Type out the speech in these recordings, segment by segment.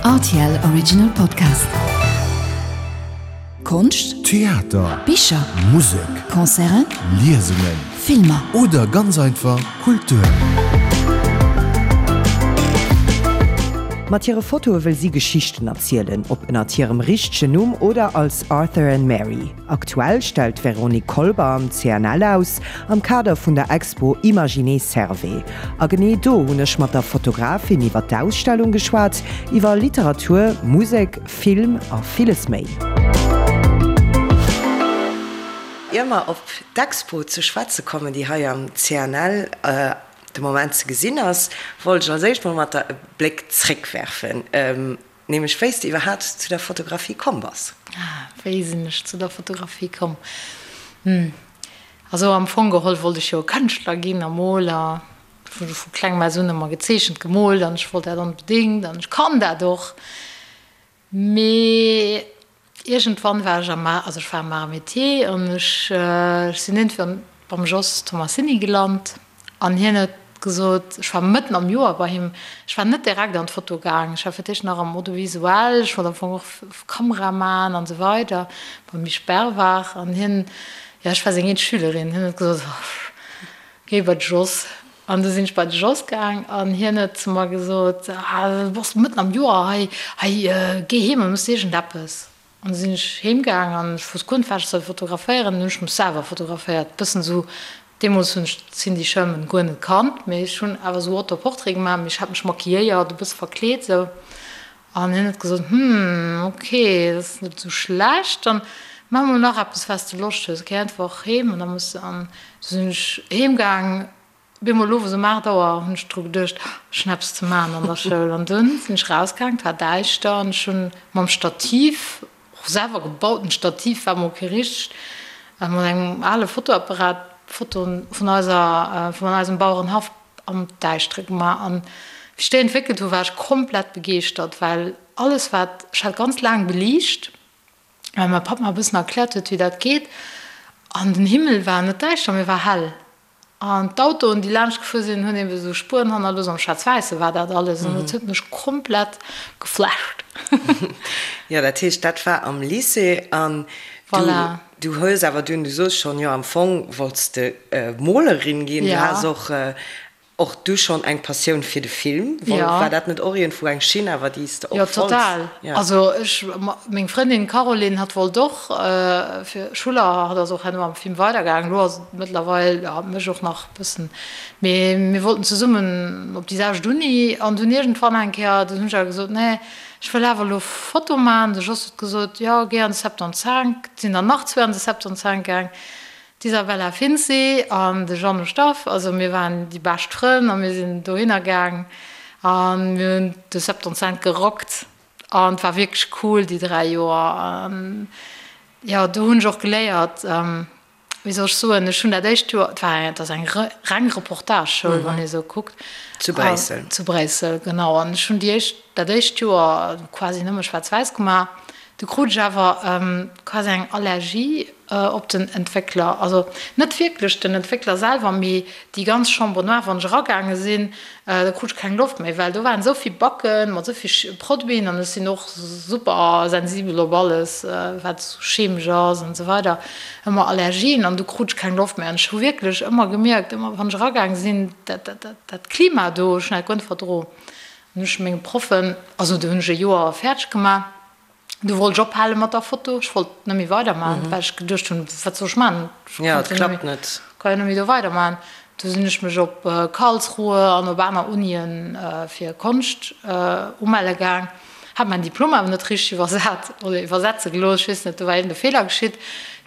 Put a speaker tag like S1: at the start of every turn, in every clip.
S1: Rtl Original Podcast. Konscht,
S2: Theater,
S1: Bicher,
S2: Musek,
S1: Concerten,
S2: Liesungen,
S1: Filmer.
S2: Oder ganz einfach Kultur.
S3: Mat hire Fotoe wëll si Geschichten erzielen, ob ënnert hirem richtegen Numm oder als Arthur and Mary. Aktuell stellt d'Véronique Kolber am CNL aus, am Kader vun der Expo Imaginer Servais. A genee do hunn ech mat der Fotografin iwwer d'Ausstellung geschwat, iwwer Literatur, Musek, Film a villes méi.
S4: Ier mer op d'Expo ze schwätze kommen, déi hei am CNL de Moment ze gesinn ass, wollt ech als éischt mol mat der e Bléck zréckwerfen. Nämlech wéi s de iwwerhaapt zu der Fotografie komm bass.
S5: Ah, wéi sinn ech zu der Fotografie komm? Hm, also am Fong geholl wollt ech jo Kënschtler ginn a Moler. Ech hu vu klengem aus un ëmmer gezeechent, gemoolt an ech wollt dat onbedéngt an ech kann dat och. Mee Iergendwann war ech am, also ech war am Arts et Métiers an ech sinn iergendwann beim Jos Tomassini gelant an hien huet gesot, ech war mëtten am Joer bei him, ech war net direkt an d'Foto gaang, ech war fir d'éischt nach am Audiovisuel, ech wollt am Fong och Kamera man an esou weider, beim Misch Bervard an hien, jo ech war seng eenzeg Schülerin, hien huet gesot, géi bei de Jos. An du sinn ech bei de Jos gaang an hien huet zu mer gesot, Ah, du bass mëtten am Joer hei, hei, géi heem an muss iergendeppes. An du sinn ech heem gaang an ech wosst guer net, wat ech soll fotograféieren. Dann hunn ech mech selwer fotograféiert, bëssen esou, deemools hunn ech d'Cindy Sherman guer net kannt, mee ech hunn awer esou Autoportrait gemaach, mee ech hat mech maquilléiert, e bësse verkleet esou. An hien huet gesot, Hm, ok, dat ass net esou schlecht, dann maach mol nach eppes, wat s de Loscht hues, géi einfach heem an da muss de. An du sinn ech heem gaang. Op eemol owes um 8 Auer hunn ech dru geduecht, ech hunn eppes ze maachen an der Schoul. An dunn sinn ech rausgaang, et war däischter an ech hunn mam Stativ, och selwer gebauten Stativ, war mol kee richtegt, mat engem ale Fotoapparat Fotoen vun eiser, vun eisem Bauerenhaff am Däischtere gemaach. An wéi ech déi entwéckelt hu war ech komplett begeeschtert, well alles wat, ech hat ganz laang beliicht, well mäi Papp mer e bëssen erkläert huet wéi dat geet, an den Himmel war net däischter, mee war hell. An d'Autoen, déi laanscht gefuer sinn, hunn eben esou Spueren hannerlooss. Am Schwaarz-Wäisse war dat alles an dat huet mech komplett geflasht.
S4: Jo, dat heescht, dat war am Lycée an du,
S5: Voilà.
S4: du hues awer dunn, du soos schonn, jo am Fong wollts de Molerin ginn. Du
S5: Ja.
S4: has och Och du schonn eng Passioun fir de Film?
S5: Ja.
S4: War dat net och iergendwou eng Schinn awer déi s de och
S5: Jo,
S4: wolls?
S5: total.
S4: Ja.
S5: Also ech, meng Frëndin Caroline, hatt wollt och fir Schuller, hatt ass och herno am Film weidergaangen, elo ass et mëttlerweil, jo, mech och nach e bëssen, mee mir wollten zesummen op déi selwecht Uni an dunn iergendwann eng Kéier, dunn hunn ech awer gesot, nee, ech wëll awer elo Foto maachen. De Jos huet gesot, jo, géi an de Septante-cinq. Et sinn der nach zwee an de Septante-cinq gaang. D'Isabella Finzi an de Jeannot Staff, also mir waren déi bescht Frënn a mir sinn dohinner gaang a mir hunn de Septante-cinq gerockt an et war wierklech cool déi 3 Joer. An jo, do hunn ech och geléiert, wéi soll ech soen, ech hunn dat éischt Joer, et war et ass eng reng Reportage-Schoul, wann ee sou kuckt.
S4: Zu Bréissel.
S5: Zu Bréissel, genau. An ech hunn déi éischt, dat éischt Joer quasi nëmme schwaarz-wäiss gemaach. Du krut ech awer quasi eng Allergie op den Entwéckler. Also net wierklech den Entwéckler selwer, mee déi ganz Chambre noire. Wann ech eragaange sinn, da krut ech keng Loft méi, well do waren esou vill Backen mat esou vill Produiten an ech sinn och super sensibel op alles, wat esou chemesch ass an esou weider, ëmmer Allergien an du krut ech keng Loft méi. An ech hu wierklech ëmmer gemierkt, ëmmer wann ech eragaange sinn, dat, dat, dat Klima do, ech hunn dat guer net verdro. An ech menge Proffen, also do hunn ech e Joer fäerdeg gemaach, du wollt ech ophale mat der Foto, ech wollt net méi weidermachen, well ech geduecht hunn, wat soll ech maachen, ech
S4: Ja, et
S5: konnt jo net
S4: klappt
S5: méi,
S4: net.
S5: ka jo net méi do weidermachen. Du sinn ech mech op Karlsruhe an op aner Unien fir Konscht umelle gaang, hat mäin Diplom awer net richteg iwwersat oder iwwersetze gelooss, ech weess net, do war iergend e Feeler geschitt.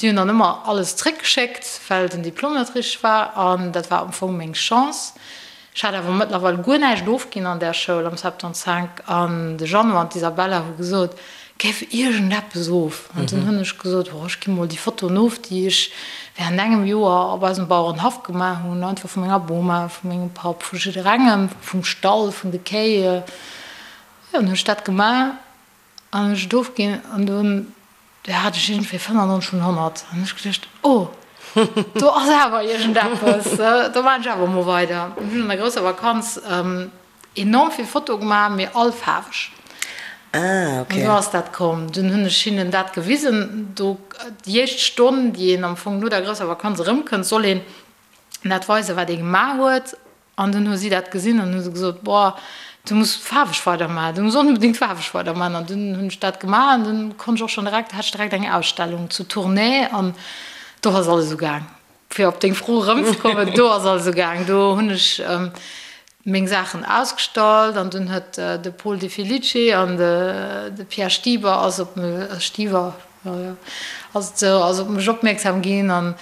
S5: Déi hunn dann ëmmer alles zréckgeschéckt, well den Diplom net richteg war an dat war am Fong meng Chance. Ech hat awer mëttlerweil guer näischt ofginn an där Schoul am Septante-cinq an de Jeannot an d'Isabella hu gesot, Géif iergendeppes of. An dunn hunn ech gesot, Oh, ech gi mol déi Fotoen of, déi ech während engem Joer op eisem Bauerenhaff gemaach hunn, einfach vu menger Boma, vu mengem Papp, vu jidderengem, vum Stall, vun de Kéi. Jo, dann hunn ech dat gemaach an hunn ech et ofginn an dunn Do hat ech iergendwéi 95 vun 100 an ech geduecht, oh, do ass awer iergendeppes, do maachen ech awer emol weider. An hunn an der grousser Vakanz enorm vill Fotoe gemaach, mee all faarweg.
S4: Ah, ok.
S5: An do ass dat komm. Dunn hunn ech hinnen dat gewisen. Do, déi éischt Stonn, déi een am Fong no der grousser Vakanz erëmkënnt, soll een dat weisen, wat ee gemaach huet. An dunn hu si dat gesinn an hu se gesot, Boah, du muss faarweg weidermaachen, du muss onbedéngt faarweg weidermaachen. An dunn hunn ech dat gemaach an dunn konnt ech och schonn direkt, hat ech direkt eng Ausstellung zu Tournai an do ass alles ugaang. Fir op deng Fro erëmzekommen, do ass alles ugaang. Do hunn ech meng Saachen ausgestallt an dunn huet de Paul De Felice an de Pierre Stieber ass op mech, Stieber, jo, jo, ass op mech opmierksam ginn an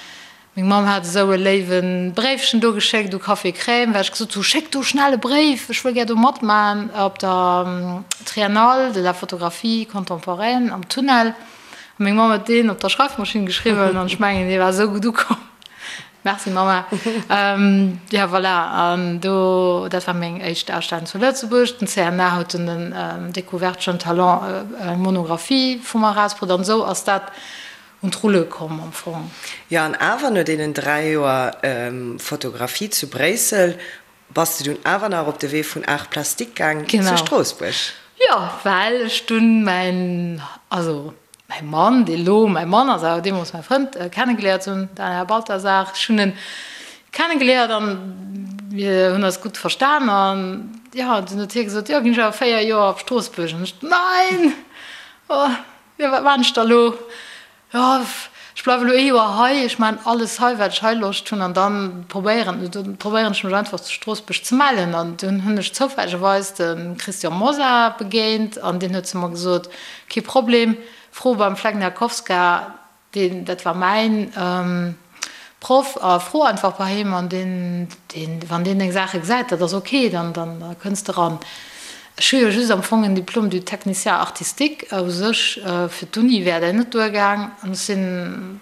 S5: Meng Mamm hat esou e léiwe Bréifchen do geschéckt u Café Crème, well ech gesot hu, Schéckt do schnell e Bréif, ech wëll gär do matmaen op der Triennale de la photographie contemporaine am Tunnel. A meng Mamm huet deen op der Schreifmaschinn geschriwwen an ech mengen, dee war esou gutt ukomm. Merci Mamma. Jo, voilà, an do, dat war meng éischt Ausstellung zu Lëtzebuerg. Den CNA huet dunn den Découverte Jeunes Talents eng Monographie vu mer erausbrutt an esou ass dat un d'Rulle komm am Fong.
S4: Jo, an awer no deenen 3 Joer Fotografie zu Bréissel bass de dunn awer nach op de Wee vun Arts Plastiques gaang zu Stroossbuerg.
S5: Jo, well ech dunn mäin, also mäi Mann, dee lo mäi Mann ass, awer deemools mäi Frënd, kennegeléiert hunn, den Här Balthasar. Ech hunn en kennegeléiert an mir hunn eis gutt verstan an jo, dunn huet hie gesot, jo, ginn ech awer 4 Joer op Stroossbuerg. An ech, Nein! Oh! Jo, wat maan ech da lo? Jo, ech bleiwe lo ee Joer hei, ech maan alles hei, wat ech hei Loscht hunn, an dann probéieren, dann probéieren ech mech einfach zu Stroossbuerg ze mellen. An dunn hunn ech zoufällegerweis de Christian Mosar begéint an deen huet zu mer gesot, Kee Problem, fro beim Flegniakowska, Deen, dat war mäin Proff, a fro einfach bei him an deen, deen, wann deen deng Saache gesäit, dat ass ok, dann, dann kënns de ran. Ech hu jo just am Fong en Diplôme du technicien artistique, u sech fir d'Uni wär dat net duergaang, an ech sinn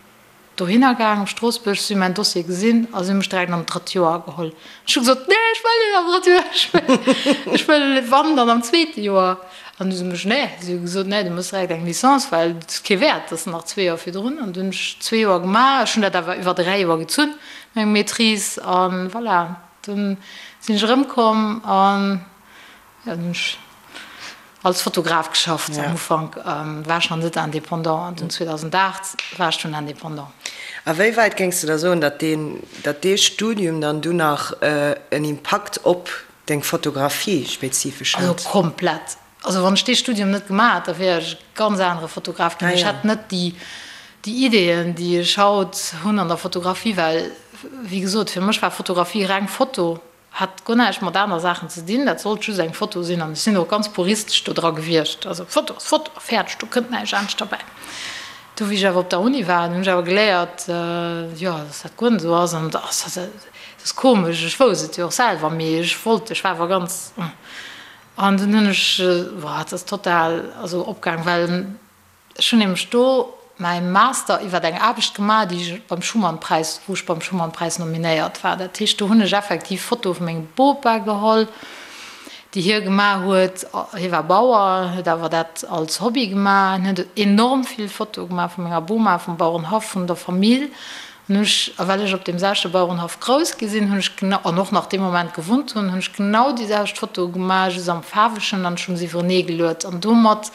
S5: dohinner gaang op Stroossbuerg, si hu mäin Dossier gesinn a si hu mech direkt an d'drëtt Joer geholl. Ech hu gesot, Nee, ech wëll net am drëtte Joer, ech wëll, ech wëll wann, dann am zweete Joer. An du hu se mech, nee, si hu gesot, nee, du muss direkt eng Licence, well et ass kee Wäert, dat ass nach zwee Joer virdrun. An dunn hunn ech zwee Joer gemaach, ech hunn dat awer iwwer dräi Joer gezunn, meng Maîtrise, a voilà, dunn sinn ech erëmkomm an jo, dunn hunn ech als Fotograf geschafft. Am Ufank war ech nach net indépendant an dunn 2008 war ech dunn indépendant.
S4: A wéi wäit géings de da soen, datt deen, datt dee Studium dann dunn nach en Impakt op Deng Fotografie spezifesch
S5: hat? Also komplett. Also wann ech dee Studium net gemaach hätt, da wier ech e ganz anere Fotograf ginn. Ech hätt net déi déi Ideeën, déi ech haut hunn an der Fotografie, well wéi gesot, fir mech war Fotografie reng Foto, hat guer näischt mat aner Saachen ze dinn, dat sollt just eng Foto sinn an ech sinn och ganz puristesch do dra gewiescht. Also Foto ass Foto a fäerdeg, do kënnt näischt anescht derbäi. Du wéi ech awer op der Uni war, hunn ech awer geléiert, jo, dass dat guer net esou ass an dass dat ass komesch, ech wousst et jo och selwer, mee ech wollt, ech war awer ganz, an dunn hunn ech, boah, et ass total also opgaang, well ech hunn nämlech do mäi Master iwwer eng Aarbecht gemaach, déi ech beim Schuman-Präis, wou ech beim Schuman-Präis nominéiert war. Dat heescht, do hunn ech effektiv Fotoe vu mengem Bopa geholl, déi hie gemaach huet. Hie war Bauer, huet awer dat als Hobby gemaach. Hien huet enorm vill Fotoe gemaach vu menger Boma, vum Bauerenhaff, vun der Famill. An hunn ech, a well ech op deem selwechte Bauerenhaff grouss gi sinn, hunn ech genau, an och nach dee Moment gewunnt hunn, hunn ech genau déi selwecht Fotoe gemaach, just am Faarwegen, an ech hunn se iwwerenee geluet. An domat,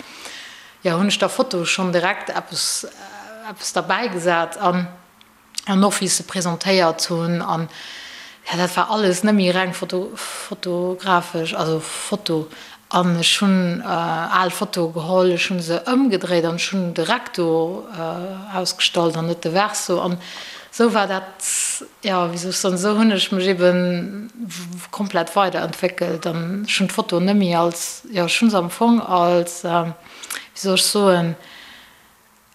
S5: jo, hunn ech der Foto schonn direkt eppes, eppes derbäigesat. An. an och wéi ech se presentéiert hunn an jo dat war alles net méi reng foto fotografesch, also Foto an ech hunn al Fotoe geholl, ech hunn se ëmgedréit an ech hunn de Recto ausgestallt an net de Verso an esou war dat, jo wéi soll ech soen, esou hunn ech mech ebe komplett weiderentwéckelt an ech hunn d'Foto net méi als, jo ech hunn se am Fong als, wéi soll ech soen,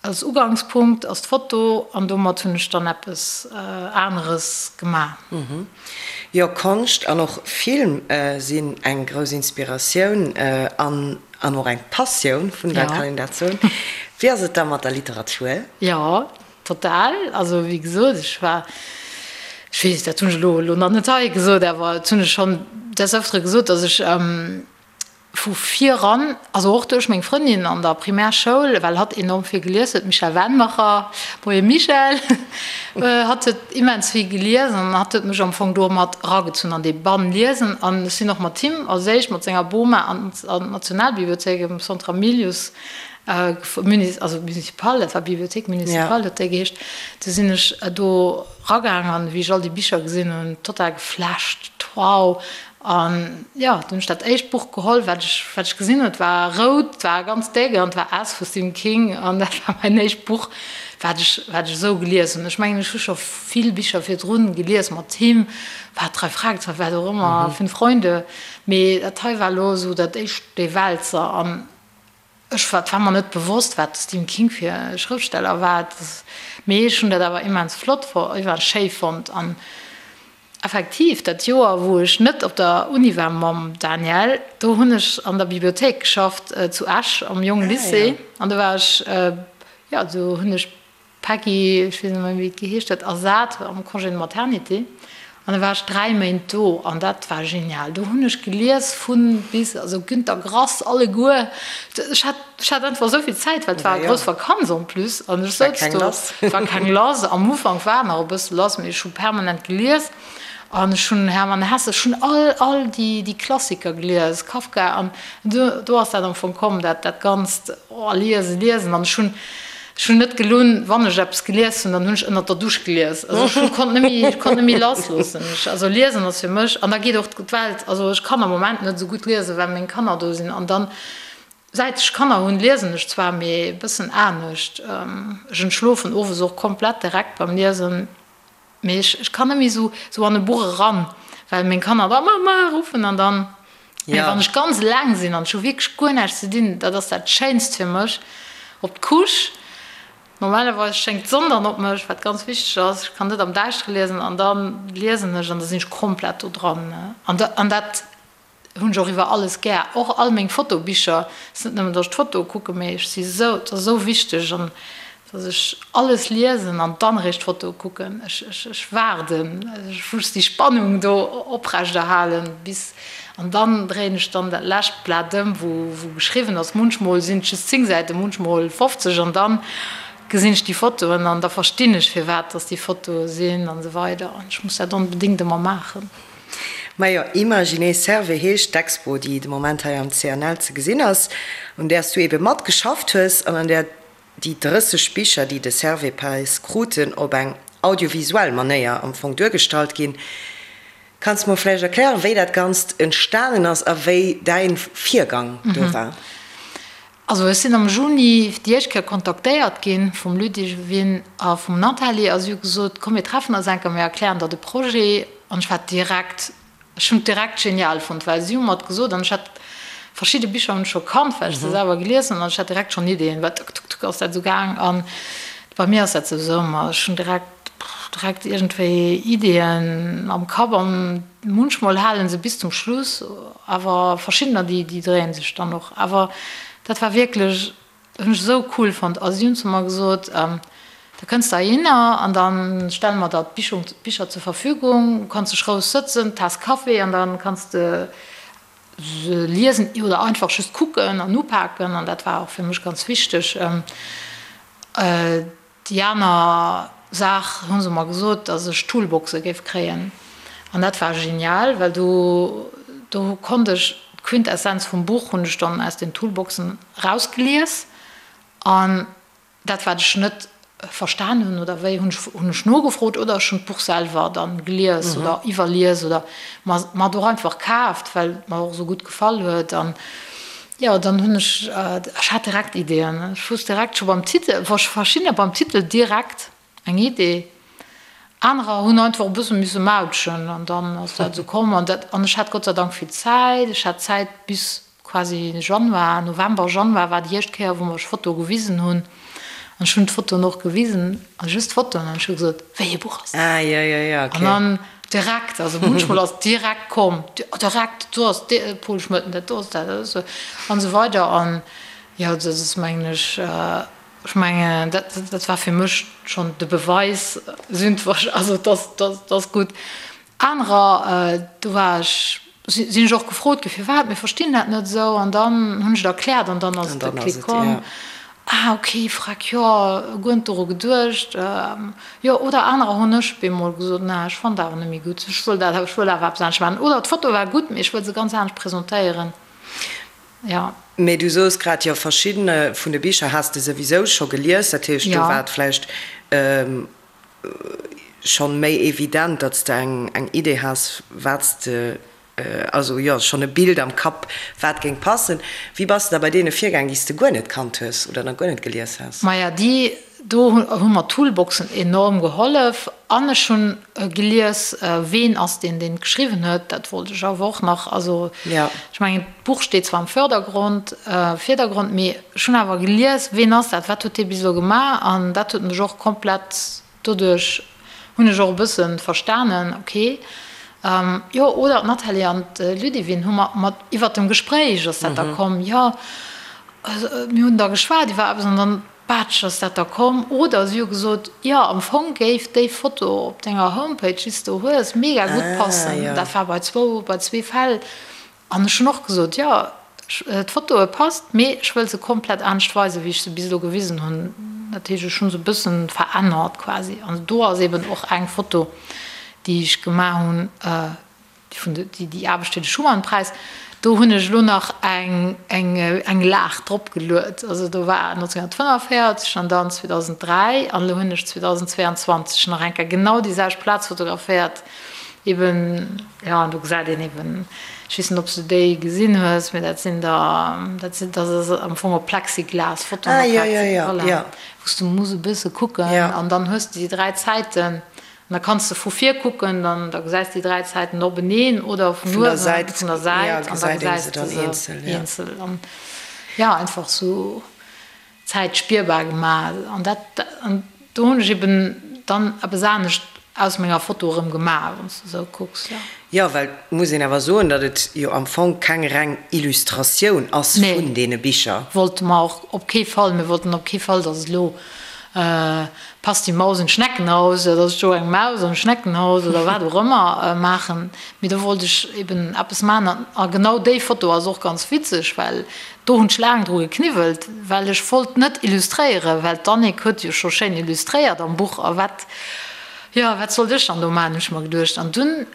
S5: Als Ugangspunkt ass d'Foto an domat hunn ech dann eppes aneres gemaach.
S4: Jo, Konscht an och Film sinn eng grouss Inspiratioun an an och eng Passioun vun der, kann een dat soen? Wéi ass et da mat der Literatur?
S5: Jo, total. Also wéi gesot, ech war, ech weess, dat hunn ech elo elo nach net hei gesot, awer dat hunn ech schonn des Öfteren gesot, datt ech. Vu viran, also och duerch meng Frëndin an der Primärschoul, well hatt enorm vill gelies huet, d'Michèle Wennmacher, Moie Michèle, hatt huet immens vill gelies an hatt huet mech am Fong do mat eragezunn an dee Bann liesen. An ech sinn och mat him als éischt mat senger Boma an d'Nationalbibliothéik am Centre Hamilius, also Municipal, dat war Bibliothèque municipale huet déi geheescht, du sinn ech do eragaang an wéi ech all déi Bicher gesinn hunn, total geflasht, wow, An jo, dunn hunn ech dat éischt Buch geholl, wat ech, wat ech gesinn hunn. Et war rout, et war ganz déck an et war S vu Stephen King. An dat war mäin éischt Buch, wat ech, wat ech esou gelies hunn. Ech mengen, ech hu scho vill Bicher virdrun gelies mat him, war Drei Fragezeichen, wat och ëmmer, Fünf Freunde. Mee dat hei war elo esou dat éischt, dee Wälzer. An ech war, et war mer net bewosst, wat de Stephen King fir e Schrëftsteller war. Mee ech hunn dat awer immens flott, immens schéi fonnt. An Effektiv, dat Joer wou ech net op der Uni war mam Daniel, do hunn ech an der Bibliothéik geschafft zu Esch am Jong Lycée an do war ech, jo do hunn ech d'Peggy, ech weess net méi wéi et geheescht huet, ersat am Congé de maternité an da war ech 3 Méint do an dat war genial. Do hunn ech gelies vun bis, also Günter Grass alleguer, ech hat Ech hat einfach esou vill Zäit, well et war grouss Vakanz en plus an ech souz do, et war keng lass. Am Ufank war nach e bësse lass, mee ech hu permanent gelies an ech hunn Hermann Hesse, ech hunn all, all déi, déi Klassiker gelies, Kafka an do, do ass dat am Fong komm, dat, dat ganzt, oh, liesen, liesen an ech hunn, ech hunn net gelunn, wann ech eppes gelies hunn, dann hunn ech ënnert der Dusch gelies. Also ech hu konnt net méi, ech konnt net méi lassloossen. Ech, also liesen ass fir mech, an da geet och d'Welt, also ech kann am Moment net esou gutt liesen, well meng Kanner do sinn an dann, Säit ech Kanner hunn, liesen ech zwar, mee e bëssen anescht. Ech entschlofen owes och komplett direkt beim Liesen, mee ech ech kann net méi esou esou an e Buch eran, well meng Kanner da Mama ruffen an dann, mee wann ech ganz eleng sinn an ech hu wierklech guer näischt ze dinn, dat ass dat Schéinst fir mech, op d'Couche. Normalerweis schéngt d'Sonn dann op mech, wat ganz wichteg ass, ech kann net am Däischtere liesen an da liesen ech an da sinn ech komplett do dran an an dat Hunn ech och iwwer alles gär, och all meng Fotobicher. Et ass net nëmmen, datt ech d'Fotoe kucken, mee ech si sou, et ass esou wichteg an datt ech alles liesen an dann eréischt d'Fotoe kucken. Ech, ech, ech waarden, ech muss déi Spannung do oprechterhalen bis, an dann dréien ech dann dat lescht Blat ëm, wou, wou geschriwwen ass. Munchmol sinn et just 10 Säiten, munchmol 50 an dann gesinn ech déi Fotoen an da verstinn ech firwat datt déi Fotoe sinn an esou weider an ech muss dat onbedéngt ëmmer maachen.
S4: Majo, Imaginer Serve heescht d'Expo, déi de Moment hei am CNL ze gesinn ass, un där s du ebe matgeschafft hues an an där déi 30 Bicher, déi de Servais-Präis kruten, op eng audiovisuell Manéier am Fong duergestallt ginn. Kanns de mer vläicht erklären, wéi dat Ganzt entstanen ass a wéi däin Virgang do war?
S5: Also ech sinn am Juni déi éischt Kéier kontaktéiert gi vum Ludivine a vum Nathalie a si hu gesot, komm mir treffen eis eng Kéier, mir erklären der de Projet. An ech war direkt, ech hunn et direkt genial fonnt, well si hu mer et gesot an ech hat verschidde Bicher hunn ech scho kannt, well ech se selwer gelies hunn an ech hat direkt schonn Ideeën, well tuck, tuck, tuck ass dat esou gaang. An bei mir ass dat souwisou ëmmer, ech hunn direkt, direkt iergendwéi Ideeën am Kapp an munchmol hale se bis zum Schluss. Awer verschiddener déi déi dréien sech dann och. Awer dat war wierklech, hunn ech esou cool fonnt. A si hunn zu mer gesot, da kënns de heihinner an da stelle mer der d'Bichung d'Bicher zur Verfügung, du kanns dech roueg sëtzen, Taass Café an da kanns de se liesen oder einfach just kucken an upaken. An dat war och fir mech ganz wichteg. Déi aner Saach hu se mer gesot, datt ech Toolboxe géif kréien. An dat war genial, well do, do konnt ech d'Quintessenz vum Buch hunn ech dann aus den Toolboxen erausgelies. An dat, wat ech net verstan hunn oder wéi, hunn ech, hunn ech nogefrot oder ech hunn d'Buch selwer dann gelies oder iwwerlies oder mer, mer et och einfach kaaft, well et mer och esou gutt gefall huet. An Jo, dann hunn ech, ech hat direkt Ideeën. Ech wusst direkt scho beim Titel, verschiddener beim Titel direkt eng Idee, anerer hunn einfach e bësse misse mautschen an dann ass dat esou komm. An dat, an ech hat Gott sei Dank vill Zäit. Ech hat Zäit bis quasi Januar, November, Januar war déi éischt Kéier, wou mer ech Fotoe gewisen hunn. An ech hunn d'Fotoen och gewisen, also just d'Fotoen, an ech hu gesot, Wéi ee Buch ass dat?
S4: Ah, jo, jo, jo, okay.
S5: An dann direkt, also munchmol ass direkt komm, direkt, do ass de Pol Schmëtten, dat do ass dat, dat ass an esou weider. An jo, dat ass, mengen ech, ech mengen, dat, dat war fir mech schonn de Beweis, also dat, dat ass gutt. Anerer, do war ech. Sinn ech och gefrot gi firwat, mir verstinn dat net esou an dann hunn ech et erkläert an dann ass et de Klick komm. Ah ok, freck, jo, guer net doru geduecht. Jo, oder anerer hunn ech bemol gesot, na ech fannen dat awer net méi gutt, ech wëll dat, ech wëll awer eppes anescht maachen oder d'Foto war gutt, mee ech wëll se ganz anescht presentéieren, jo.
S4: Mee du soos grad, jo verschiddene vun de Bicher has de souwisou scho gelies, dat heescht do war et vläicht schonn méi evident, datt s de eng eng Idee has, wat s de, also jo, schonn e Bild am Kapp, wat géing passen. Wéi bass de da bei deene virgaang, déi s de guer net kannt hues oder nach guer net gelies has?
S5: Maja, déi do hu mer d'Toolboxen enorm gehollef an ech hunn gelies, ween ass deen, deen et geschriwwen huet, dat wollt ech awer och nach. Also ech mengen, d'Buch steet zwar am Fördergrond, Virdergrond, mee Ech hunn awer gelies, ween ass dat, wat huet dee bis elo gemaach an dat huet mech och komplett, doduerch hunn ech och e bësse verstanen, ok, jo, oder d'Nathalie an d'Ludivine hu mer mat iwwert dem Gespréich ass dat da komm, jo, mir hunn da geschwat iwwer eppes an dann, batsch, ass dat da komm. Oder si hu gesot, jo, am Fong géif déi Foto op denger Homepage, déi s de do hues, mega gutt passen. Dat war bei zwou, bei zwee Fäll. An ech hunn och gesot, jo, d'Fotoe passt, mee ech wëll se komplett anescht weisen, wéi ech se bis elo gewisen hunn. Dat heescht, ech hu se e bësse verännert quasi. An do ass eben och eng Foto, déi ech gemaach hunn, déi vun de, déi Aarbecht fir de Schuman-Präis, do hunn ech elo nach eng, eng, eng Lag drop geluet. Also do war 1945 an dann 2003 an elo hunn ech 2022 nach eng Kéier genau déi selwecht Plaz fotograféiert. Eben, jo, an do gesäit een eben, ech weess net, ob s du déi gesinn hues, mee dat sinn der, dat sinn, dat ass am Fong op Plexiglas, Fotoen op Plexiglas, voilà, wou s du muss e bësse kucken an dann hues de déi 3 Zäiten an da kanns de vu vir kucken, dann da gesäis de déi 3 Zäiten openeen oder vun uewen, vun der Säit an da gesäis de se eenzel an jo, einfach sou. Zäit spierbar gemaach an dat an do hunn ech eben dann eppes anescht aus menger Foto erëm gemaach, wann s de esou kucks, jo.
S4: Jo, well et muss een awer soen, datt et jo am Fong keng reng Illustratioun ass vun deene Bicher.
S5: Nee, wollte mer och op kee Fall. Mir wollten op kee Fall, datt et elo Passt die Maus in Schneckenhaus, datt ech do eng Maus am Schneckenhaus oder wat och ëmmer maachen. Mee do wollt ech eben eppes maachen a genau déi Foto ass och ganz witzeg, well Do hunn ech laang dru gekniwwelt, well ech wollt net illustréieren, well d'Annick huet jo scho schéin illustréiert am Buch a wat, jo, wat sollt ech dann do maachen, hunn ech mer geduecht. An dunn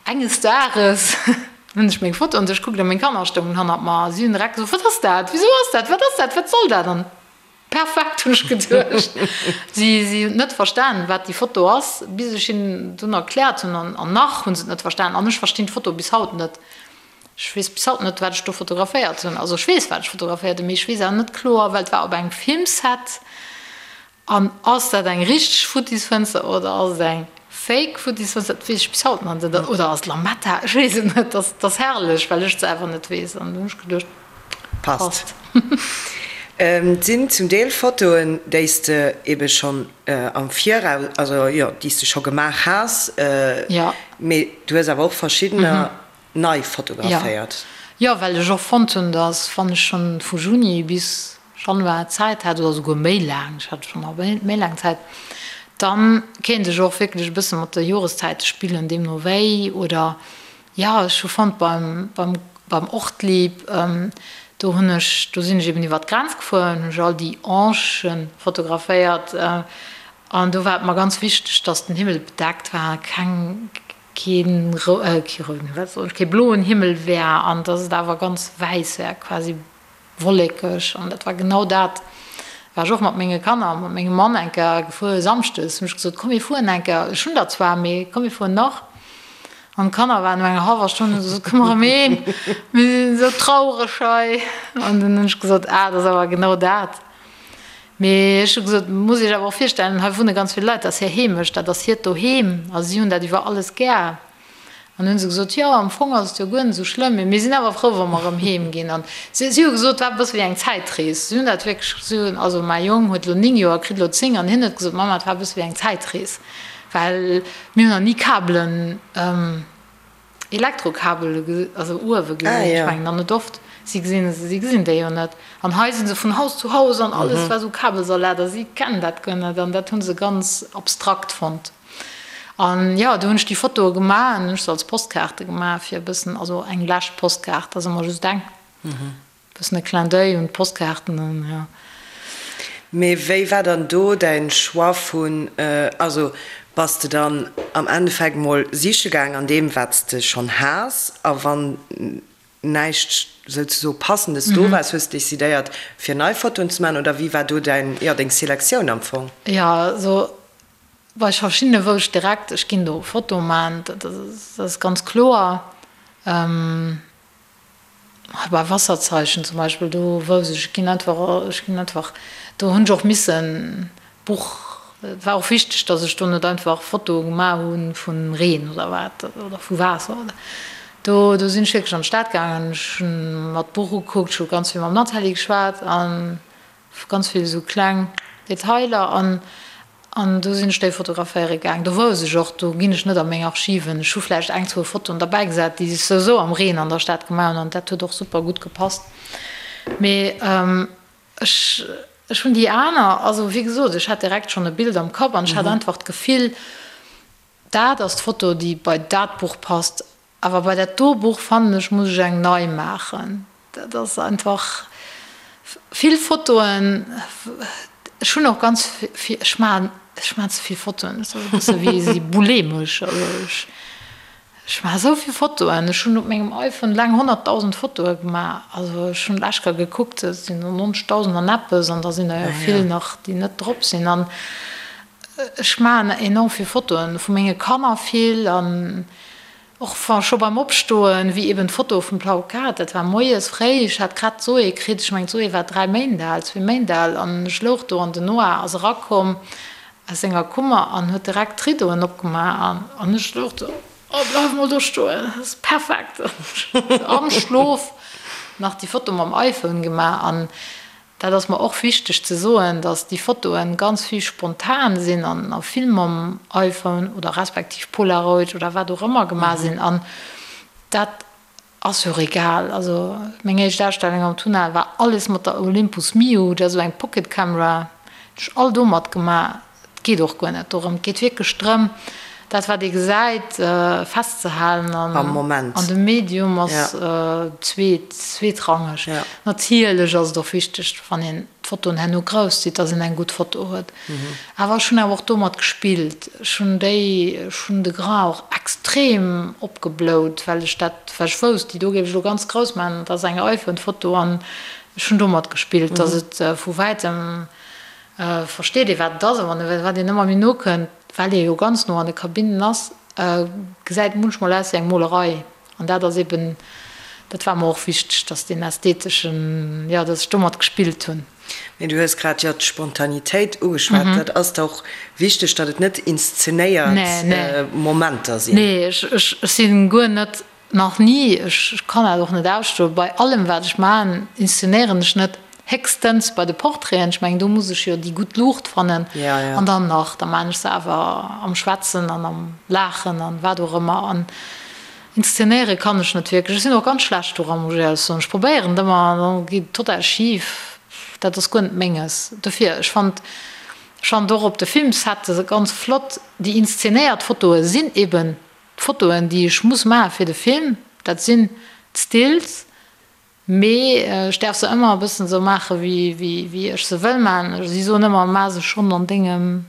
S5: enges Dages hunn ech meng Foto an duerch kuckt a meng Kanner stoungen hannert mer a si hunn direkt gesot, Wat ass dat? Wisou ass dat? Wat ass dat? Wat soll dat? An perfekt, hunn ech geduecht. Si si hunn net verstanen, wat déi Foto ass, bis ech hinnen dunn erkläert hunn an nach hu se et net verstanen an ech verstinn d'Foto bis haut net. Ech weess bis haut net, wat ech do fotograféiert hunn. Also ech weess, wat ech fotograféiert hunn, mee ech weess awer net kloer, well et war op engem Filmset. An ass dat eng richteg Futtisfënster oder ass et eng fake Futtisfënster? Dat weess ech bis haut nach net. Oder ass et Lametta? Ech weess et net. Dat ass herrlech, well ech et selwer net weess. An du hunn ech geduecht,
S4: passt. Et sinn zum Deel Fotoen, déi s de ebe schonn am Viraus, also jo, déi s de scho gemaach has, mee du hues awer och verschiddener nei fotograféiert.
S5: Jo, well ech och fonnt hunn, dass wann ech schonn vu Juni bis Januar Zäit hat, oder souguer méi laang, ech hat schonn nach méi laang Zäit, dann kéint ech och wierklech e bësse mat de Joreszäite spillen, deemno wéi. Oder jo, ech hu fonnt beim, beim, beim Ortlieb, do hunn ech, do sinn ech eben iwwer d'Grenz gefuer, hunn ech all déi Angen fotograféiert an do war et mer ganz wichteg, dass den Himmel bedeckt war, keng, keen kee bloen Himmel wär an dass et awer ganz wäiss wär, quasi wollekeg. An dat war genau dat, war ech och mat menge Kanner a mat mengem Mann eng Kéier gefuer, samschdes hunn ech gesot, komm mir fueren eng Kéier, ech hunn der zwar, mee komm mir fueren nach. An d'Kanner waren no enger hallwer Stonn, hunn se gesot, komm erëm heem, mir sinn esou traureg hei. An dunn hunn ech gesot, ah, dat ass awer genau dat. Mee ech hu gesot, muss Iech awer och virstellen, hei wunne ganz vill Leit, dat ass hir Heemecht, dat ass hiert Doheem a si hunn dat iwwer alles gär. An hunn se gesot, jo, am Fong ass et jo guer net esou schlëmm, mee mir sinn awer frou, wa mer erëm heem ginn. An si si hu gesot, et war e bësse wéi eng Zäitrees. Si hunn dat wierklech, si hunn, also mäi Jong huet elo 9 Joer, kritt elo 10, an hien huet gesot, Mama, et war e bësse wéi eng Zäitrees, well mir hunn nach ni Kabelen, Elektrokabele also uewe gesinn, ech mengen dann net oft, si gesinn se, si gesinn déi jo net. An hei si se vun Haus zu Haus an alles war esou Kabelsalat a si kennen dat guer net an dat hu se ganz abstrakt fonnt. An jo, do hunn ech déi Fotoe gemaach an hunn ech se als Postkaarte gemaach, fir e bëssen, also eng lescht Postkaart, ass ëmmer just eng, e bëssen e Clin d'oeil un d'Postkaarten an jo.
S4: Mee wéi war dann do däin Choix vun, also bass de dann am Endeffekt mol siche gaang an deem wat s de schonn has a wann näischt souzesoe passendes do war, hues de decidéiert fir nei Fotoen ze maachen oder wéi war do däin, jo deng Selektioun am Fong?
S5: Jo, also bei verschiddene wou ech direkt, ech ginn do Fotoe maachen, dat ass ganz kloer. Bei Wasserzeichen zum Beispill, do wousst ech, ech ginn einfach, ech ginn einfach, do hunn ech och missen d'Buch, et war och wichteg, datt ech do net einfach Fotoe gemaach hu vu Reen oder wat oder vu Waasser oder do, do sinn ech wierklech an d'Stad gaangen, ech hunn mer d'Buch ukuckt, ech hu ganz vill mam Nathalie geschwat an ganz vill esou kleng Detailer an An do sinn ech déi fotograféiere gaang. Do wousst ech och, do ginn ech net a meng Archiven. Ech hu vläicht eng, zwou Fotoen derbäi gesat, déi ech souwisou am Reen an der Stad gemaach hunn, an dat huet och super gutt gepasst. Mee ech, ech hunn déi aner, also wéi gesot, ech hat direkt schonn e Bild am Kapp an ech hat einfach d'Gefill, dat ass d'Foto, déi bei dat Buch passt. Awer bei dat do Buch fannen ech muss ech eng nei maachen. Dat ass einfach vill Fotoen. Ech hunn och ganz vill, ech maachen, ech maachen ze vill Fotoen. Dat ass e bësse wéi si bulemesch. Also ech, ech maache sou vill Fotoen. Ech hunn op mengem iPhone eleng 100.000 Fotoe gemaach. Also ech hunn lech Kéier gekuckt, dat sinn 90.000 an eppes an da sinn der jo vill nach, déi net drop sinn. An Ech maachen enorm vill Fotoen, vu menge Kanner vill an och scho beim Opstoen, wéi eben d'Foto vum Plaukat, dat war moies fréi, ech hat grad d'Zoé kritt, ech mengen d'Zoé war 3 Méint al, zwee Méint al an ech louch do an den Noah ass erakomm aus senger Kummer an huet direkt d'Ridoen opgemaach an ech louch do, oh bleif mol do stoen, dat ass perfekt, am Schlof nach déi Foto mam iPhone gemaach an Dat ass mer och wichteg ze soen, dass déi Fotoen ganz vill spontan sinn an a vill mam iPhone oder respektiv Polaroid oder wat och ëmmer gemaach sinn. An dat ass jo och egal. Also meng éischt Ausstellung am Tunnel war alles mat der Olympus Mju, dat ass esou eng Pocket Camera, hunn ech all domat gemaach. Et geet och guer net dorëm. Et geet wierklech drëm, dat wat ee gesäit, festzehalen
S4: Am Moment.
S5: An de Medium ass zweetrangeg. Natierlech ass et och wichteg, wann een d'Fotoen herno grouss zitt, datt een eng gutt Foto huet. Awer ech hunn awer och domat gespillt. Ech hunn déi, ech hunn de Grain och extrem opgeblout, well ech dat, well ech wousst, déi do géif ech elo ganz grouss maachen, dat ass eng iPhone-Foto an ech hunn domat gespillt, datt et vu wäitem Versteet ee wat et ass, a wann wat een ëmmer méi no kënnt, well ee jo ganz no an de Kabinnen ass, gesäit et munchmol aus wéi eng Molerei. An dat ass eben, dat war mer och wichteg, dass deen ästheteschen, jo, dass ech domat gespillt hunn.
S4: Mee du hues grad jo d'Spontanitéit ugeschwat. Dat ass der och wichteg, datt et net inszenéiert Momenter sinn?
S5: Nee, ech si guer net Nach ni, ech kann dat och net ausstoen. Bei allem wat ech maachen, inszenéieren ech net, héchstens bei de Portraiten, ech mengen do muss ech jo déi gutt Luucht fannen an dann nach, da maachen ech se awer am Schwätzen an am Laachen an wat och ëmmer. An inszenéiere kann ech net wierklech. Ech sinn och ganz schlecht doran, muss ech éierlech soen. Ech probéieren et ëmmer an da geet et total schif. Dat ass guer net menges. Dofir, ech fannt, ech fannt och op de Filmsette ganz flott, déi inszenéiert Fotoe sinn eben D'Fotoen, déi ech muss maache fir de Film, dat sinn d'Stills, mee ech däerf se ëmmer e bëssen esou maache wéi ech se wëll maachen. Si soen ëmmer, Maach se schonn an dengem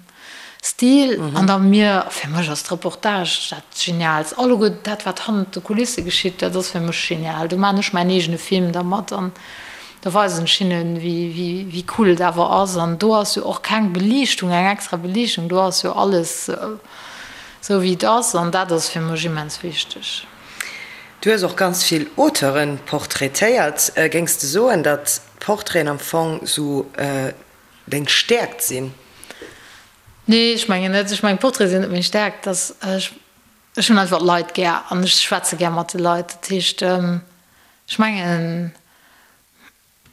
S5: Stil. An da mir, fir mech ass d'Reportage dat Geniaalst. Alleguer dat, wat hannert de Kulisse geschitt, dat ass fir mech genial. Do maachen ech mäin eegene Film dermat an da weisen ech hinnen, wéi cool et awer ass. An do ass jo och keng Beliichtung, eng extra Beliichtung, do ass jo alles Sou wéi et ass, an dat ass fir mech immens wichteg.
S4: Du hues och ganz vill Auteuren portraitéiert. Géings de soen, datt d'Portraiten am Fong sou deng Stäerkt sinn?
S5: Nee, ech mengen net. Ech mengen, d'Portraite sinn net meng Stäerkt. Dass ech, ech hunn einfach d'Leit gär an ech schwätze gär mat de Leit. Dat heescht, ech mengen,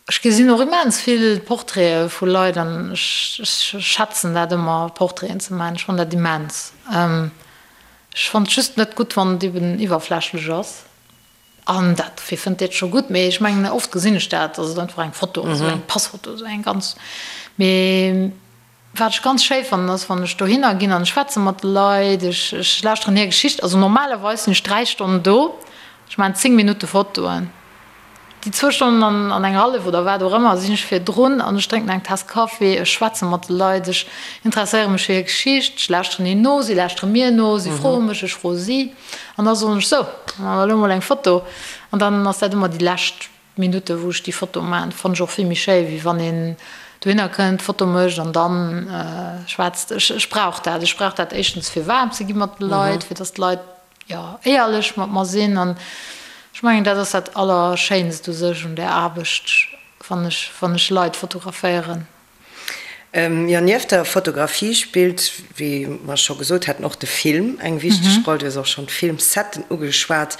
S5: Ech gesinn och immens vill Portraite vu Leit an ech schätzen dat ëmmer Portraiten ze maachen. Ech fannen dat immens. Ech fannen et just net gutt wann et eben iwwerflächlech ass. An dat, wie fënnt dat scho gutt? Mee ech mengen oft gesinn ech dat, dass et einfach eng Foto ass, esou eng Passfoto, esou eng ganz, mee. Wat ech ganz schéi fannen, ass, wann ech dohinner ginn an ech schwätze mat de Leit, ech, ech lauschteren hir Geschicht. Also normalerweis sinn ech 3 Stonnen do, ech maachen 10 Minutte Fotoen. Déi zwou Stonnen an, an eng hallef oder wat och ëmmer sinn ech virdrun an ech drénken eng Taass Kaffi, ech schwätze mat de Leit, ech interesséiere mech fir hir Geschicht, ech lauschteren hinnen no, si lauschtere mir no, si froe mech, ech froe si. An da soen ech, sou, da maache mer elo mol eng Foto. An dann ass dat ëmmer déi lescht Minutte wou ech déi Foto maachen. Fannen ech och vill méi schéi, wéi wann een dohinner kënnt, d'Foto mécht an dann schwätzt. Ech, ech brauch dat. Ech brauch dat éischtens fir waarm ze gi mat de Leit, fir datt d'Leit, jo, éierlech mat mer sinn an ech mengen, dat ass dat Allerschéinst u sech un där Aarbecht, wann ech, wann ech Leit fotograféieren.
S4: Jo, nieft der Fotografie spillt, wéi mer scho gesot haten, och de Film eng wichteg Roll. Du hues och schonn d'Filmsetten ugeschwat.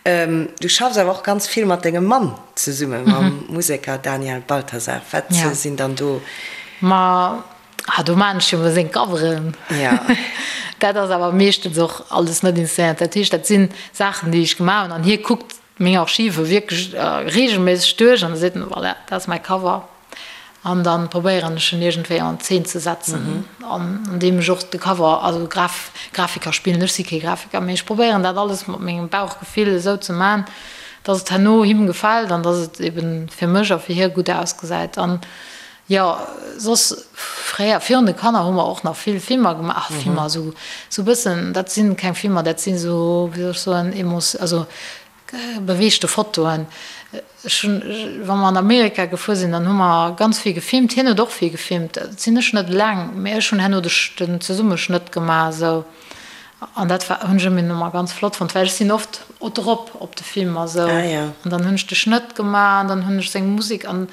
S4: Du schaffs awer och ganz vill mat dengem Mann zesummen, mam Museker Daniel Balthasar. Wat sinn dann do.
S5: Ma Ah, do maan ech jo mol seng Coveren.
S4: Ja.
S5: Dat ass awer meeschtens och alles net inszenéiert. Dat heescht, dat sinn Saachen, déi ech gemaach hunn an hie kuckt meng Archive wierklech reegelméisseg duerch an da seet en, voilà, dat ass mäi Cover. An da probéieren ech en iergendwéi an Zeen ze setzen, an andeem ech och de Cover, also Graf, Grafiker spillen, ech si kee Grafiker, mee ech probéieren dat alles mat mengem Bauchgefill esou ze man, dass et herno him gefält an dass et eben fir mech a fir hie gutt ausgesäit. An Jo, soss fréier virun de Kanner hu mer och nach vill Filmer gemaach, ach Filmer, esou esou bëssen, dat sinn keng Filmer, dat sinn esou, wéi soll ech soen, Emos, also beweegte Fotoen. Ech hunn, wa mer an Amerika gefuer sinn, dann hu mer ganz vill gefilmt, hien huet och vill gefilmt, dat sinn ech net eleng, mee ech hunn herno de den Zesummeschnëtt gemaach esou an dat war, hunn ech ëmmer ganz flott fonnt, well ech sinn oft drop op de Filmer esou an dann hunn ech de Schnëtt gemaach an dann hunn ech seng Musek an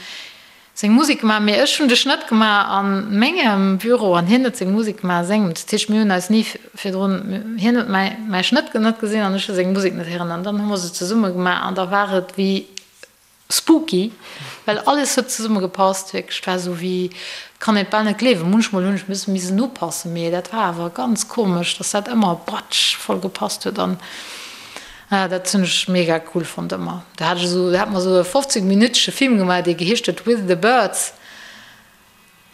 S5: Seng Musek gemaach, mee ech hunn de Schnëtt gemaach a mengem Büro an hien huet seng Musek gemaach a sengem. Dat heescht, mir hunn eis ni virdrun, hien huet mäi mäi Schnëtt net gesinn an ech hu seng Musek net héieren an dann hu mer se zesumme gemaach an da war et wéi spooky, well alles huet zesumme gepasst, wierklech. Et war esou wéi, kann een et bal net gleewen. Munchmol hunn ech missen missen upassen, mee dat war awer ganz komesch, dass dat ëmmer batsch voll gepasst huet an. Ah, dat hunn ech mega cool fonnt ëmmer. Do hat ech esou, do hat mer esou e 15 minütege Film gemaach, dee geheescht huet With the Birds.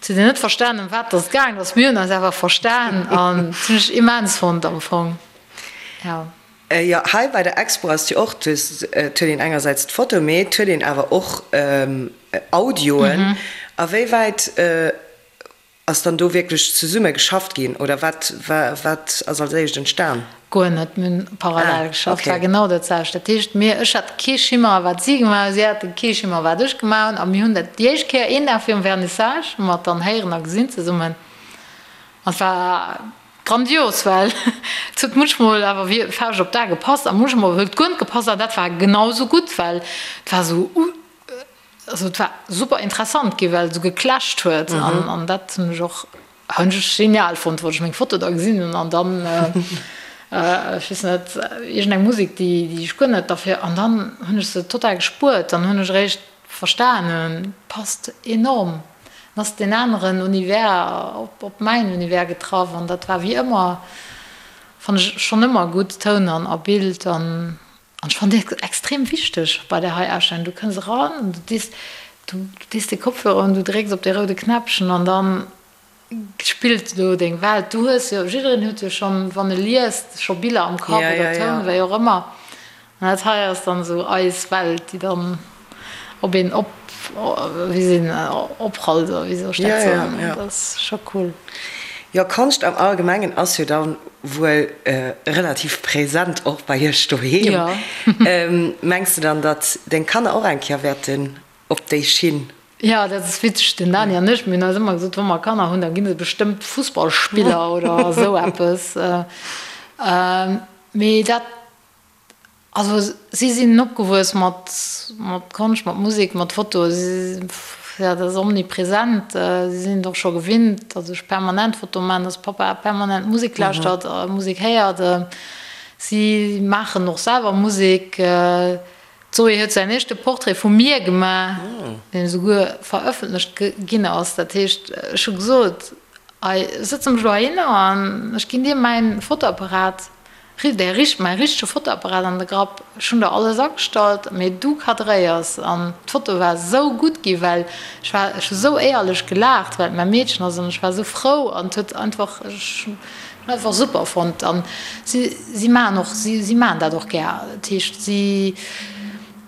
S5: Et huet een net verstan, ëm wat dass et gaangen ass, mir hunn eis awer verstan an dat hunn ech immens fonnt am Fong,
S4: jo. Jo, hei bei der Expo ass et jo och, du hues, et huet een engersäits d'Foto, mee et huet een awer och Audioen. A wéi wäit Ass dann do wierklech zesumme geschafft ginn oder wat wat ass als éischt entstan?
S5: Guer net, mir hunn parallel geschafft, war genau dat selwecht. Dat heescht mir, ech hat kee Schimmer wat si gemaach hunn, si hate kee Schimmer wat ech gemaach hunn a mir hunn dat déi éischt Kéier een Dag virum Vernissage hu mer et dann héieren a gesinn zesummen an et war grandios, well et huet munchmol awer wéi Fauscht op d'A gepasst a munchmol huet et guer net gepasst an dat war genau esou gutt, well et war esou. Also et war super interessant gi well et esou geclasht huet an an dat hunn ech och hunn ech genial fonnt, wou ech meng Foto da gesinn hunn an dann ech weess net iergend eng Musek déi déi ech guer net derfir an dann hunn ech se total gespuert, dann hunn ech eréischt verstanen, passt enorm, dann ass deen aneren Univers op op mäin Univers getraff an dat war wéi ëmmer fann ech schonn ëmmer gutt Toun an a Bild an An ech fannen dat extrem wichteg bei där hei Ausstellung. Du kënns eran an du dees, du dees de Kopfhörer un, du drécks op dee roude Knäppchen an dann spillt do deng Welt. Du hues jo, jiddereen huet jo schonn, wann e liest, scho Biller am Kapp oder Toun, wéi och ëmmer. An dat hei ass dann esou eis Welt, déi dann op een op, wéi seet een, oprallt oder wéi soll ech dat soen? Dat ass scho cool.
S4: Jo, Konscht am Allgemengen ass jo dann wuel relativ präsent och bei iech doheem. Mengs de dann, datt deng Kanner och eng Kéier wäerten op déi Schinn?
S5: Jo, dat ass witzeg. Den Dani an ech, mir hunn eis ëmmer gesot, wa mer Kanner hunn, da gi se bestëmmt Fussballspiller oder esou eppes. Mee dat Also si sinn opgewuess mat mat Konscht, mat Musek, mat Foto. Si jo, dat ass omnipresent. Si sinn et och scho gewinnt, datt ech permanent Foto maachen, datt Pappa permanent Musek lauschtert a Musek héiert. Si maachen och selwer Musek. D'Zoé huet säin éischte Portrait vu mir gemaach, deen esouguer verëffentlecht ginn ass. Dat heescht, ech hu gesot, Hei, ech sëtze mech elo heihinner an ech ginn dir mäin Fotoapparat. Däi richt, mäi richtege Fotoapparat an de Grapp, ech hunn der alles agestallt, mee du cadréiers. An d'Foto war esou gutt gi well ech war, ech hu sou éierlech gelaacht, well et mäi Meedchen ass an ech war esou frou an et huet einfach, ech hunn einfach super fonnt. An si, si maachen och, si, si maachen dat och gär. Dat heescht, si,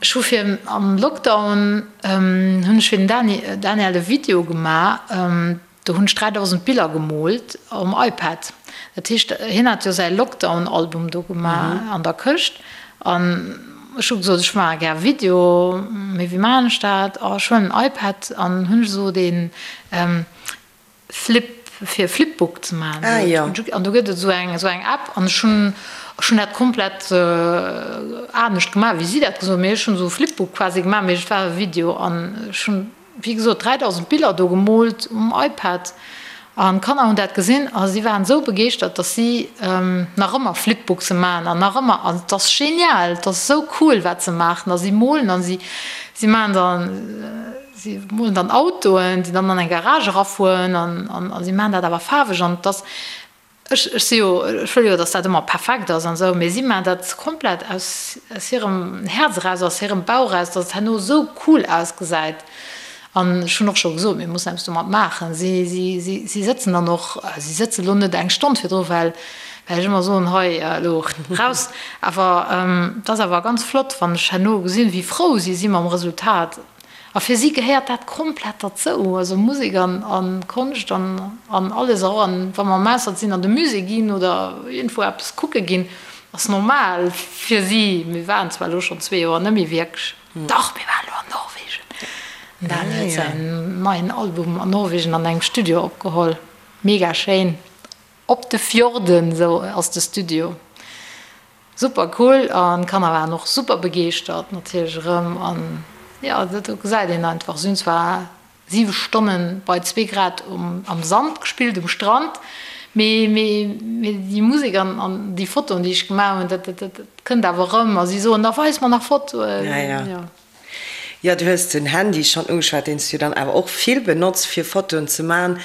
S5: ech hu fir am Lockdown hunn ech fir den Dani, Daniel e Video gemaach, Do hunn ech 3000 Biller gemoolt um iPad. Dat heescht, hien hat jo säi Lockdown-Album do gemaach an der Këscht. An ech hu gesot, ech maache gär Video, mee wéi maachen ech dat? Oh, ech huelen en iPad an hunn ech esou dee Flip, fir Flipbook ze maachen.
S4: Ah jo.
S5: An do gëtt et esou eng, esou eng App an ech hunn, ech hunn dat komplett anescht gemaach, wéi si dat gesot hunn. Mee ech hunn esou e Flipbook quasi gemaach, mee et war e Video an ech hunn. wéi gesot, 3000 Biller do gemoolt um iPad an d'Kanner hunn dat gesinn a si waren esou begeeschtert, dass si nach ëmmer Flipbookse maachen an nach ëmmer, an et ass genial, et ass esou cool wat se maachen a si molen an si si maachen dann, si molen dann Autoen, déi dann an eng Garage erafueren an a si maachen dat awer faarweg an et ass Ech, ech si jo, ech wëll jo, datt dat ëmmer perfekt ass an esou, mee si maachen dat komplett aus, aus hirem Häerz eraus, aus hirem Bauch eraus, datt et herno esou cool ausgesäit. An ech hunn och scho gesot, mir mussen eppes domat maachen. Si, si, si, si sëtzen dann och, si sëtze lo net eng Stonn virdru, well, well ech ëmmer soen, hei elo raus. Awer et ass awer ganz flott, wann ech herno gesinn, wéi frou si si mam Resultat. A fir si gehéiert dat komplett derzou, also Musek an Konscht an alles. Och wa mer am Ausland sinn, an de Musée ginn oder iergendwou eppes kucke ginn, ass normal fir si. Mir waren zwar elo schonn zwee Joer net méi wierklech, dach mir waren elo an Norwegen. Den Dani huet säin neien Album an Norwegen an engem Studio opgeholl, mega schéin, op de Fjorden, esou ass de Studio. Super cool an d'Kanner waren och super begeeschtert natierlech erëm an jo do gesäit een einfach, si hunn zwar 7 Stonnen bei zwee Grad um am Sand gespillt um Strand, mee mee mee déi Musek an an déi Fotoen déi ech gemaach hunn dat dat dat kënnt awer erëm a si soen da weis mer nach Fotoen
S4: jo. Jo, du hues den Handy schonn ugeschwat, deen s du dann awer och vill benotz fir Fotoen ze man.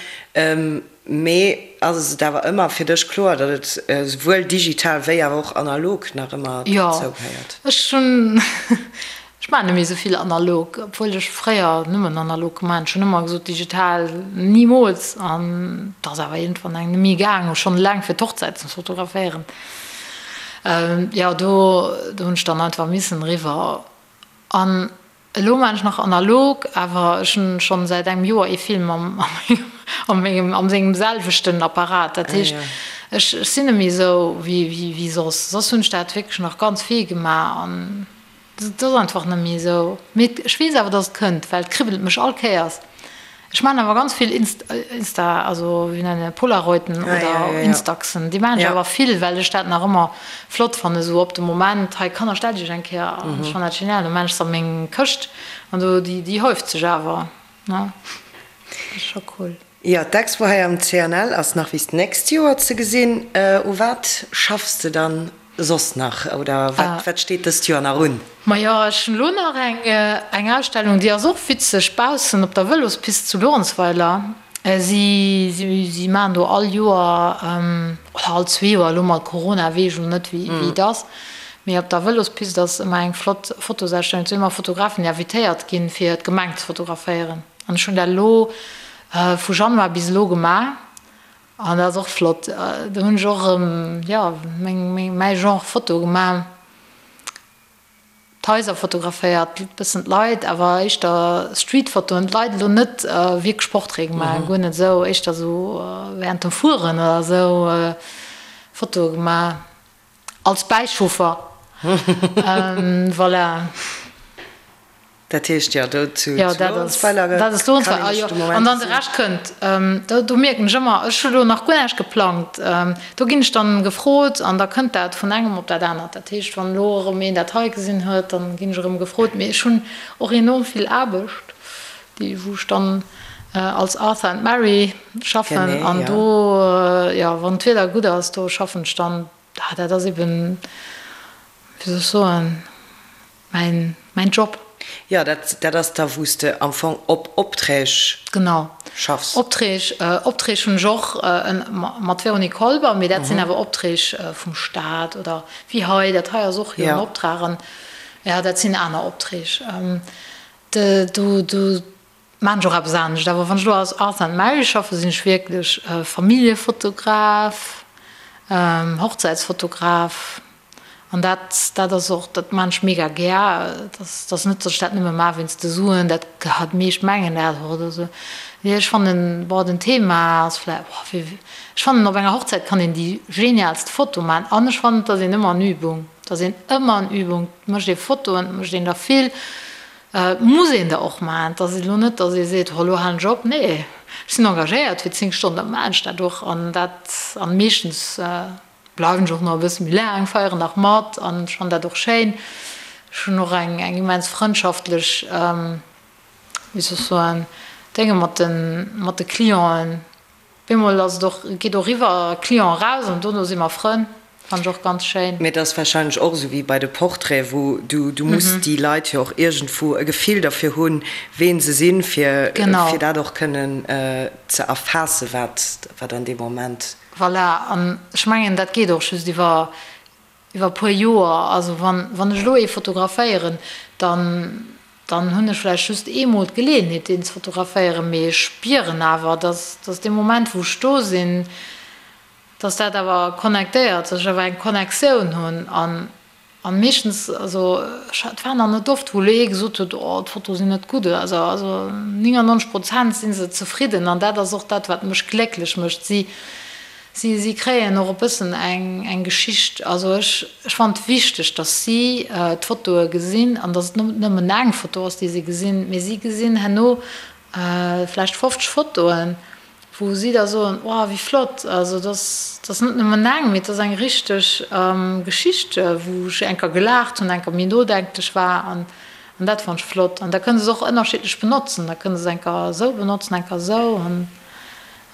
S4: Mee ass et awer ëmmer fir dech kloer, datt et esouwuel digital wéi awer och analog nach ëmmer dozou gehéiert?
S5: Jo, ech hunn, ech maachen net méi esou vill analog, obwuel ech fréier nëmmen analog gemaach hunn. Ech hunn ëmmer gesot, digital nimools an et ass awer iergendwann eng net méi gaang, schonn eleng fir d'Hochzäit ze fotograféieren. Jo, do hunn ech dann einfach missen eriwwer. An elo maan ech nach analog, awer ech hunn schonn säit engem Joer ee Film am am mengem am sengem selwechten Apparat. Dat heescht ech ech sinn net méi esou wéi wéi soss. Soss hunn ech dat wierklech nach ganz vill gemaach an et ass einfach net méi esou. Mee ech weess awer dass et kënnt, well et kribbelt mech all Kéiers. Ech maan awer ganz vill Insta, also wéi nennen Polaroiden oder Instaxen, déi maan ech awer vill, well ech dat nach ëmmer flott fannen, esou op de Moment, hei Kanner stellt iech eng Kéier an, ech fannen dat genial, da maan ech se a meng Këscht an do, déi déi häuft sech awer, ne, dat ass scho cool.
S4: Jo, d'Expo hei am CNL ass nach bis d'nächst Joer ze gesinn. U wat schaffs de dann Soss nach, oder wat steet dëst Joer nach un?
S5: Majo, ech hunn elo nach eng eng Ausstellung, déi ass och witzeg, baussen op der Vëlospist zu Luerenzweiler. Si si maachen do all Joer, oder all zwee Joer, elo mat Corona weess ech elo net wéi wéi et ass, mee op der Vëlospist ass ëmmer eng flott Fotosausstellung. Et sinn ëmmer Fotografen, déi invitéiert ginn, fir d'Gemeng ze fotograféieren. An ech hunn dat elo vu Januar bis elo gemaach. An dat ass och flott. Do hunn ech och erëm, jo, meng, meng, mäi Genre Foto gemaach. D'Haiser fotograféiert, e bëssen d'Leit, awer éischter Streetfotoen. D'Leit elo net wierklech Portraite gemaach, guer net esou, éischter esou während dem Fueren oder esou Fotoe gemaach. Als Bäichauffer, voilà.
S4: Dat heescht, jo, do zu Luerenzweiler
S5: kann een dech de Moment An dann de Rescht kënnt. Do mierken ech ëmmer, ech hu lo nach guer näischt geplangt. Do ginn ech dann gefrot an da kënnt dat vun engem op dat anert. Dat heescht, wann elo erëm een dat hei gesinn huet, dann ginn ech erëm gefrot. Mee ech hunn och enorm vill Aarbecht, déi wou ech dann als Arthur and Mary schaffen. An do, jo, wann d'Wieder gutt ass, do schaffen ech dann. Dat ass eben, wéi soll ech soen, mäin Job.
S4: Jo, dat, dat ass da wou s de am Fong op Opträg
S5: Genau.
S4: schaffs.
S5: Opträg, Opträg hunn ech och mat Véronique Kolber, mee dat sinn awer Opträg vum Staat oder wéi hei, dat hei ass och jo en Optrag an jo, dat sinn aner Opträg. Do, do maan ech och eppes anescht. Awer wann ech elo als Arthur and Mary schaffen, sinn ech wierklech Familljefotograf, Hochzäitsfotograf. An dat, dat ass och, dat maan ech mega gär. Et ass, et ass net, datt ech dat nëmme maan wéinst de Suen, dat, déi meescht mengen dat och oder esou. Nee, ech fannen, bon, den Thema ass vläicht, boah, wéi, ech fannen op enger Hochzäit kann een déi genialst Foto maan an ech fannen, et ass een ëmmer an Übung, et ass een ëmmer an Übung, et mécht ee Fotoen, et mécht een der vill, et muss een der och maan. Et ass elo net, datt ee seet, oh, elo halen ech op. Nee, ech sinn engagéiert fir 10 Stonnen, da maan ech dat och an dat, an meeschtens Bleiwen ech och nach e bësse méi laang, feieren nach mat an ech fannen dat och schéin. Ech hunn och eng eng immens frëndschaftlech, wéi soll ech soen, Dénge mat de mat de Clienten. Bemol ass et och, geet och iwwer Client eraus an dono si mer Frënn, fannen ech och ganz schéin.
S4: Mee et ass warscheinlech och esou wéi bei de Portraiten, wou du du muss déi Leit jo och iergendwou e Gefill derfir hunn, ween se sinn, fir fir dat och kënnen ze erfaassen, wat wat an deem Moment.
S5: Voilà, an ech mengen, dat geet och just iwwer iwwer e puer Joer. Also wann, wann ech elo ee fotograféieren, dann, dann hunn ech vläicht just eemol d'Geleeënheet, deen ze fotograféieren, mee ech spieren awer, dass, dass dee Moment, wou ech do sinn, dass dat awer connectéiert, dass ech awer eng Connectioun hunn. An An meeschtens, also et war nach net oft, wou elo ee gesot huet, oh d'Fotoe sinn net gutt oder esou. Also 99 Prozent si se zefridden an dat ass och dat, wat mech glécklech mécht. Si, si, si kréien och e bëssen eng, eng Geschicht. Also ech, ech fannen et wichteg, datt si d'Fotoe gesinn an datt et net nëmmen eng Foto ass, déi si gesinn, mee si gesinn herno vläicht 50 Fotoen wou si da soen, oh wéi flott, also et ass, et ass net nëmmen eng, mee et ass eng richteg Geschicht, wou ech eng Kéier gelaacht hunn, eng Kéier méi nodenklech war an an dat fannt ech flott. An da kënne se och ënnerschiddlech benotzen, da kënne se eng Kéier esou benotzen, eng Kéier esou an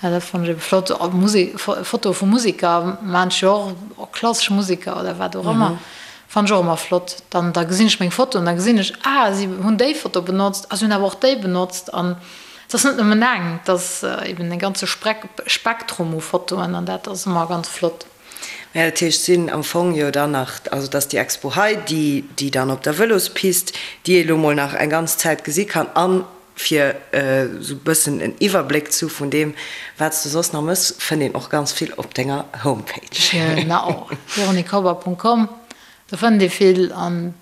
S5: jo dat fannt ech ebe flott. Musek, Fotoe vu Museker maan ech jo och, och klassesch Museker oder wat och ëmmer, fannt ech och ëmmer flott. Dann da gesinn ech meng Foto an da gesinn ech, ah si hunn déi Foto benotzt, ah si hunn awer och déi benotzt an Et ass net nëmmen eng, et ass eben e ganze Spektrum u Fotoen an dat ass ëmmer ganz flott.
S4: Mä dat heescht, sinn am Fong jo dann nach, also dass déi Expo hei, déi déi dann op der Vëlospist, déi ee lo mol nach eng ganz Zäit gesi kann, a fir esou e bëssen en Iwwerbléck ze hu vun deem, wat s de soss nach mëss, fënnt een och ganz vill op denger Homepage.
S5: Genau, véroniquekober.com, do fënnt ee vill an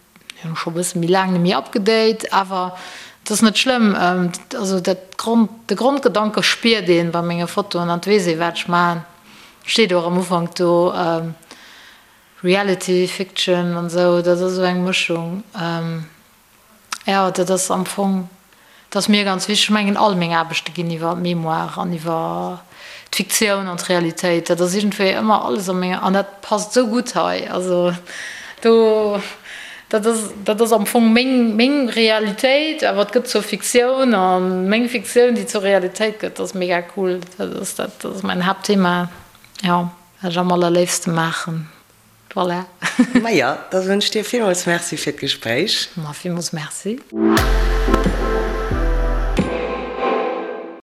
S5: Hunn scho bësse méi laang net méi upgedate, awer et ass net schlëmm. Also dat Grond, de Grondgedanke spiert een bei menge Fotoen an et weess ee wat ech maachen. Steet och am Ufank do Reality, Fiction an esou, dat ass esou eng Mëschung. Jo, dat ass am Fong Dat ass mir ganz wichteg. Ech mengen, all meng Aarbechte ginn iwwer d'Mémoire an iwwer d'Fiktioun an d'Realitéit. Dat ass iergendwéi ëmmer alles a menger, an dat passt esou gutt hei. Also do, dat ass, dat ass am Fong meng, meng Realitéit, awer et gëtt zur Fiktioun a meng Fiktioun, déi zur Realitéit gëtt, dat ass mega cool. Dat ass, dat ass mäin Haaptthema, jo, wat ech am allerléifste maachen. Voilà.
S4: Maja, da soen ech dir villmools Merci fir d'Gespréich.
S5: Ma villmools Merci.